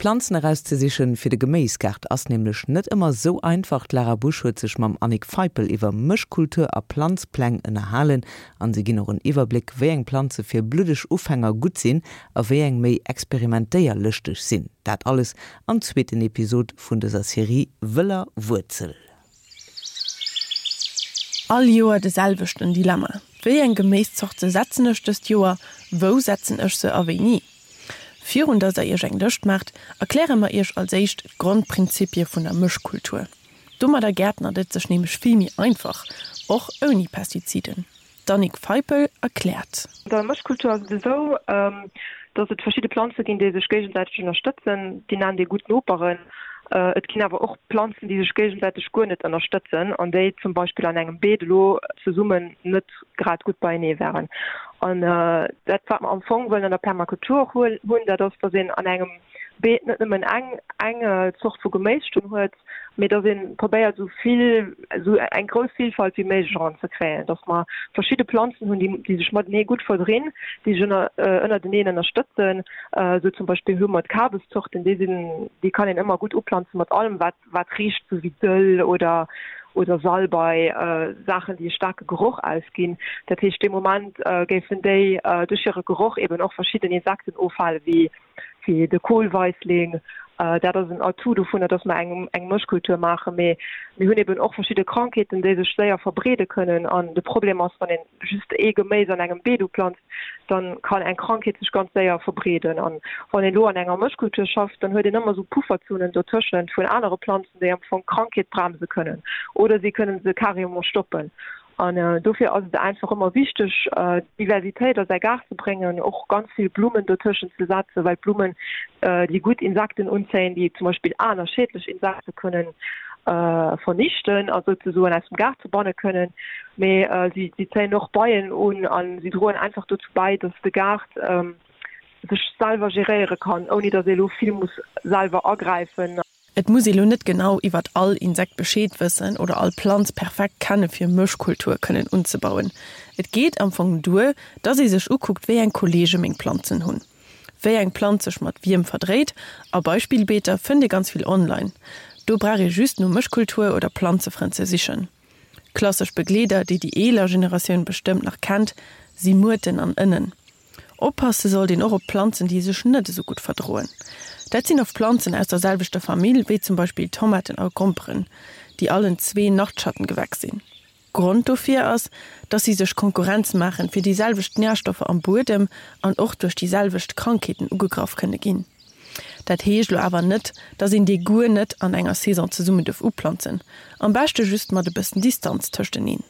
Planzen erauszesichen fir de Geméisgaart ass nämlech net ëmmer sou einfach. D'Lara Busch huet sech mam Annick Feipel iwwer Mëschkultur a Planzpläng ënnerhalen an si ginn och en Iwwerbléck wéi eng Planze fir bluddeg Ufänger gutt sinn a wéi eng méi experimentéierlëschteg sinn. Dat alles am zweeten Episod vun dëser Serie Wëller Wuerzel. All Joer de selwechten Dilemma, Wéi eng Geméiszorte setzen ech dëst Joer, wou setzen ech se a wéini? Virun dass der iech eng Lëscht maacht, erkläre mer iech als éischt d'Grondprinzipie vun der Mëschkultur. Domadder gäertnert et sech nämlech vill méi einfach, och ouni Pestiziden. D'Annick Feipel erkläert. An der Mëschkultur ass et esou, dass et verschidde Planze ginn, déi sech géigesäiteg ënnerstëtzen. Déi nennt ee gutt Noperen. Et ginn awer och Planzen, déi sech géigesäiteg guer net ënnerstëtzen an déi zum Beispill an engem Beet elo zesummen net grad gutt beienee wären. An dat, wat mer am Fong wëllen an der Permakultur och hunn, dat ass, dass een an engem Beet net nëmmen eng, eng Zort vu Geméis stoen huet, mee dass ee probéiert, esou vill, esou eng grouss Vilfalt wéi méiglech eranzekréien, dass mer verschidde Planzen hunn, déi, déi sech matenee gutt verdrinn, déi sech ënner, ënnerteneen ënnerstëtzen. Esou zum Beispill hu mer d'Kabeszorten, déi sinn, déi kann een ëmmer gutt uplanze mat allem, wat, wat richt sou wéi Dëll oder oder Salbei, Saachen déi e staarke Geroch ausginn. Dat heescht dee Moment géifen déi duerch hire Geroch eben och verschidden Insekten ofhale wéi wéi de Kohlweissling. Dat ass en Atout dovunner, datt mer eng eng Mëschkultur maachen. Mee mir hunn eben och verschidde Krankheeten déi sech séier verbreede kënnen an de Problem ass wann een just ee Geméis an engem Beet uplanzt, dann kann eng Krankheet sech ganz séier verbreeden. An wann een elo an enger Mëschkultur schafft, dann huet een ëmmer esou Pufferzonen dotëschent vun anere Planzen, déi am Fong d'Krankheet bremse kënnen oder si kënnen se carrément stoppen. An dofir ass et einfach ëmmer wichteg, Diversitéit a säi Gaart ze bréngen, och ganz vill Blummen dotëschent ze setzen, well d'Blummen déi gutt Insekten unzéien, déi zum Beispill aner schädlech Insekte kënnen vernichten a souzesoen aus dem Gaart verbanne kënnen. Mee si zéien och Beien un a si droen einfach dozou bäi, datt de Gaart sech selwer geréiere kann, ouni datt ee elo vill muss selwer agräifen. Et muss ee lo net genau iwwert all Insekt Bescheed wëssen oder all Planz perfekt kenne fir Mëschkultur kënnen unzebauen. Et geet am Fong duer, dass ee sech ukuckt wéi eng Kollege meng Planzen hunn. Wéi eng Planz sech mat wiem verdréit a Beispillbeeter fënnt ee ganz vill online. Do brauch ee just no Mëschkultur oder Planzefrënn ze sichen. Klassesch Begleeder, déi déi eeler Generatioun bestëmmt nach kennt, si Muerten an Ënnen. Oppasse sollt een och op Planzen, déi sech net esou gutt verdroen. Dat sinn oft Planzen aus der selwechter Famill, wéi zum Beispill Tomaten a Gromperen, déi allen zwee Nachtschattengewächs sinn. Grond dofir ass, dass si sech Konkurrenz maachen fir déi selwecht Närstoffer am Buedem an och duerch déi selwecht Krankheeten ugegraff kënne ginn. Dat heescht elo awer net, dass een déi guer net an enger Saison zesummen duerf uplanzen, am beschte just mat e bëssen Distanz tëschteneen.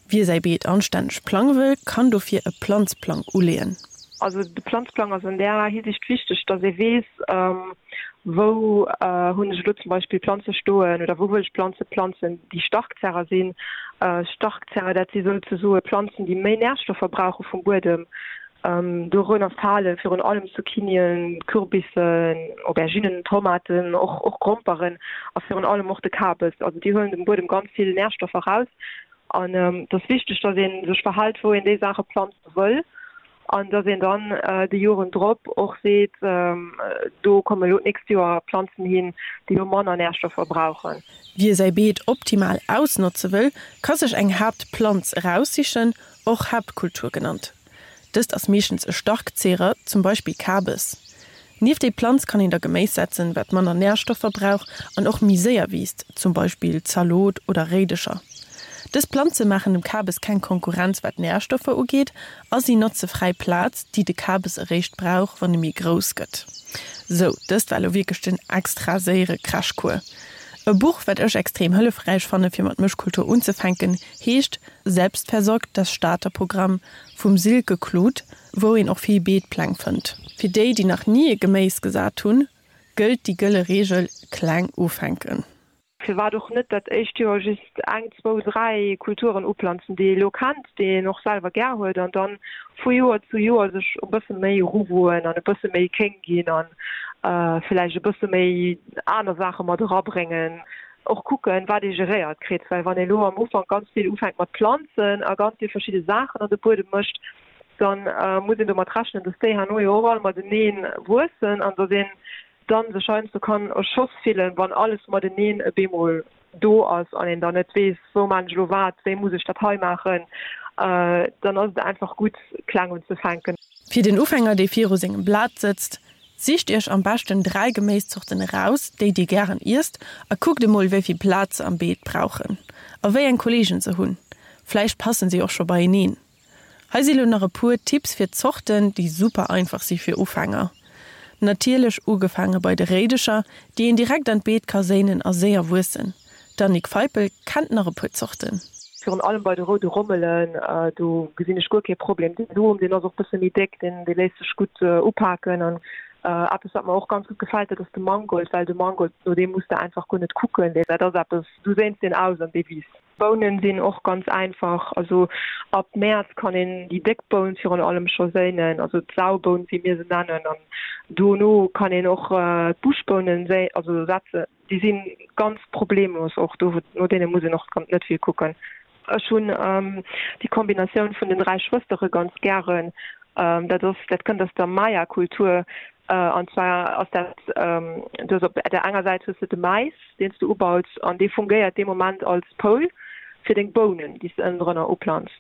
Wie säi Beet anstänneg plange wëll, kann dofir e Planzplang uleeën. Also de Planzplang ass an där Hisiicht wichteg, dass ee weess, wou hunn ech elo zum Beispill Planze stoen oder wou wëll ech Planze planzen, déi Starkzerrer sinn. Starkzerrer, dat si souzesoe Planzen, déi méi Närstoffer brauche vum Buedem. Dorënner fale virun allem Zucchinien, Kürbissen, Auberginnen, Tomaten, och och Gromperen a virun allem och de Kabes. Also déi huelen dem Buedem ganz vill Närstoffer raus. An et ass wichteg, datt ee sech verhält, wou een déi Saache planze wëll an datt een dann déi Joren drop och seet, do komme lo d'nächst Joer Planzen hin, déi lo manner Närstoffer brauchen. Wie säi Beet optimal ausnotze wëll, ka sech eng Haaptplanz eraussichen, och Haaptkultur genannt. Dëst ass meeschtens e Starkzehrer, zum Beispill Kabes. Nieft déi Planz kann een da Geméis setzen, wat manner Närstoffer brauch an och méi séier wiisst, zum Beispill Zalot oder Réidecher. Dës Planze maachen dem Kabes keng Konkurrenz wat Närstoffer ugeet a si notze fräi Plaz, déi de Kabes eréischt brauch, wann e méi grouss gëtt. Sou, dëst war elo wierklech den extra séiere Crashcours. E Buch, wat ech extrem hëllefräich fanne fir mat Mëschkultur unzefänken, heescht Selbstversorgt, das Starterprogramm vum Silke Kluth, wou een och vill Beetpläng fënnt. Fir déi, déi nach ni e Geméis gesat hunn, gëllt déi gëlle Reegel, kleng ufänken. Firwat och net dat éischt Joer just eng, zwou, dräi Kulturen uplanzen, déi ee lo kennt, déi een och selwer gär huet, an dann vu Joer zu Joer sech e bësse méi eruwoen an e bësse méi kéng ginn an villäicht e bësse méi aner Saache mat erabréngen. Och kucken, wat ee geréiert kritt, well wann ee lo am Ufank ganz vill ufänkt mat Planzen a ganz vill verschidde Saachen an de Buedem mécht, da muss een domat rechnen, dass déi herno jo och all matenee wuessen an dass een. Dann sech heiansdo kann erschoss fillen, wann alles mateneen e bemol do ass an een dann net weess, wou maan ech elo wat, wéi muss ech dat hei maachen, dann ass et einfach gutt kleng unzefänken. Fir den Ufänger, dee viru sengem Blat sëtzt, Sicht iech am beschten 3 Geméiszorten eraus, déi dir gären iesst a kuckt emol wéi vill Plaz se am Beet brauchen a wéi eng Kolleegen se hunn. Vläicht passen si och scho beieneen. Hei si lo nach e puer Tipps fir Zorten, déi super einfach si fir Ufänger. Natierlech ugefaange bei de Réidecher, déi een direkt an d'Beet ka séinen a séier wuessen. D'Annick Feipel kennt nach e puer Zorten. Virun allem bei de roude Rommelen, do gesinn ech guer kee Problem. Den Som, deen ass och bësse méi déck, deen dee léisst sech gutt upaken. An eppes, wat mer och ganz gutt gefält, dat ass de Mangold, well de Mangold, no deem muss de einfach guer net kucken, dat ass eppes, du séins deen aus an dee wiisst. Bounen sinn och ganz einfach, also ab Mäerz kann een déi déck Boun virun allem scho séinen, also d'Sauboun, wéi mir se nennen, an dono kann een och d'Buschbounen séi, also setzen. Déi si ganz problemlos och do, no deene muss een och net vill kucken. Ech hunn déi Kombinatioun vun den 3 Schwëstere ganz gären. Dat ass, dat kënnt aus der Maya-Kultur. An zwar ass dat, du hues op der enger Säit hues de de Mais, deen s du ubaus, an dee fungéiert dee Moment als Poul fir deng Bounen, déi s de ënnendrënner uplantz.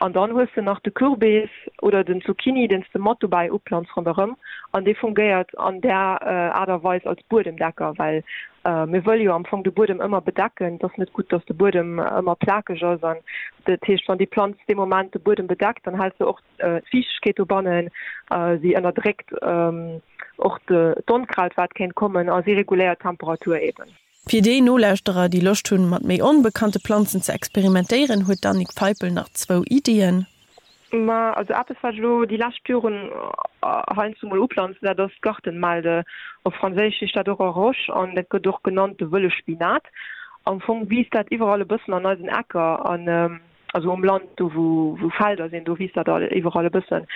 An dann hues de nach de Kürbis oder den Zucchini, deen s de mat dobäi uplantz ronderëm, an dee fungéiert an där Aart a Weis als Buedemdecker, well mir wëlle jo am Fong de Buedem ëmmer bedecken. Et ass net gutt, dass de Buedem ëmmer plakeg ass. An dat heescht, wann déi Planz dee Moment de Buedem bedeckt, dann hält se och d'Fiichtegkeet dobannen, si ënnerdréckt och d'Onkraut, wat kéint kommen, a si reguléiert d'Temperatur eben. Fir déi Nolauschterer, déi Loscht hunn, mat méi onbekannte Planzen ze experimentéieren, huet d'Annick Feipel nach zwou Iddien. Ma also eppes, wat ech elo déi lescht Joren heiansdo mol uplanzen, dat ass d'Gartenmelde. Op Franséisch heescht dat och Arroche an dat gëtt och genannt de wëlle Spinat. Am Fong wiisst dat iwwerall e bëssen an eisen Ecker an also um Land, do wou wou Felder sinn, do wiisst dat iwwerall e bëssen.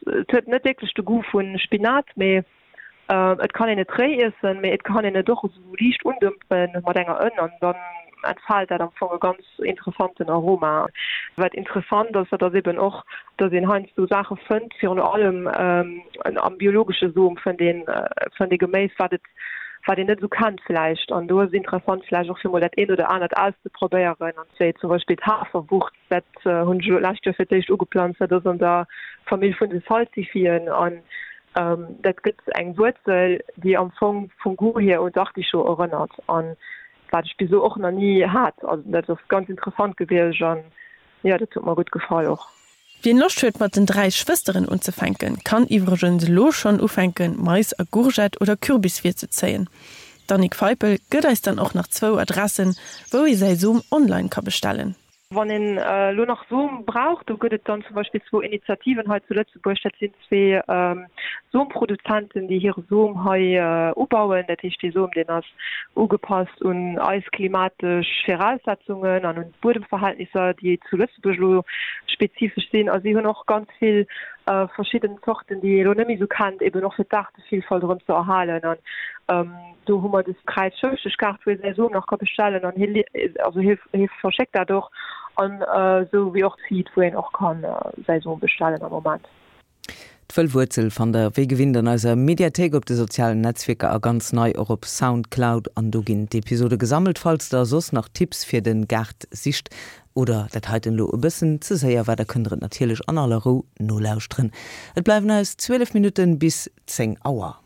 Et huet net wierklech de Goût vu Spinat, mee Et kann een et réi iessen, mee et kann een et och esou liicht undëmpen mat enger Ënn an dann entfaalt dat am Fong e ganz interessanten Aroma. Wat interessant ass, dat ass eben och, dass een heiansdo Saache fënnt, virun allem am biologesche Som fënnt een fënnt ee Geméis, wat et wat een net esou kennt vläicht. An do ass et interessant vläicht och fir mol dat eent oder anert auszeprobéieren, an wéi zum Beispill d'Haferwurz. Dat hunn ech elo d'lescht Joer fir d'éischt ugeplanzt. Dat ass an der Famill vun de Salsifien an dat gëtt eng Wuerzel, déi am Fong vum Goût hier un d'Artichaut erënnert an wat ech bis elo och nach ni hat. Also dat ass ganz interessant gewiescht an jo, dat huet mer gutt gefall och. Wien Loscht huet mat den 3 Schwësteren unzefänken, kann iwwregens elo schonn ufänken Mais a Gourgette oder Kürbis virzezéien. D'Annick Feipel gëtt eis dann och nach zwou Adressen, wou ee säi Som online ka bestellen. Wann een elo nach Som brauch, do gëtt et dann zum Beispill zwou Initiativen hei zu Lëtzebuerg. Dat sinn zwee Somproduzenten, déi hire Som hei ubauen. Dat heescht, dee Som, deen ass ugepasst un eis klimatesch Viraussetzungen an un d'Buedemverhältnisser, déi zu Lëtzebuerg elo spezifesch sinn. A si hunn och ganz vill verschidden Zorten, déi ee elo net méi esou kennt, eben och fir d'Aart Villfalt erëm ze erhalen an do hu mer des Kräiz-Schëfflesch-Kaart, wou ee säi Som nach ka bestellen an hie also hie hie verschéckt dat och an esou wéi och d'Seed, wou een och ka säi Som bestellen am Moment. D'Wëll Wuerzel fannt der wéi gewinnt an eiser Mediathéik op de sozialen Netzwierker a ganz nei och op Soundcloud an do ginn d'Episode gesammelt. Falls der soss nach Tipps fir den Gaart sicht oder dat heiten elo e bëssen ze séier war, da kënnt der et natierlech an aller Rou nolauschteren. Et bleiwen eis 12 Minutten bis 10 Auer.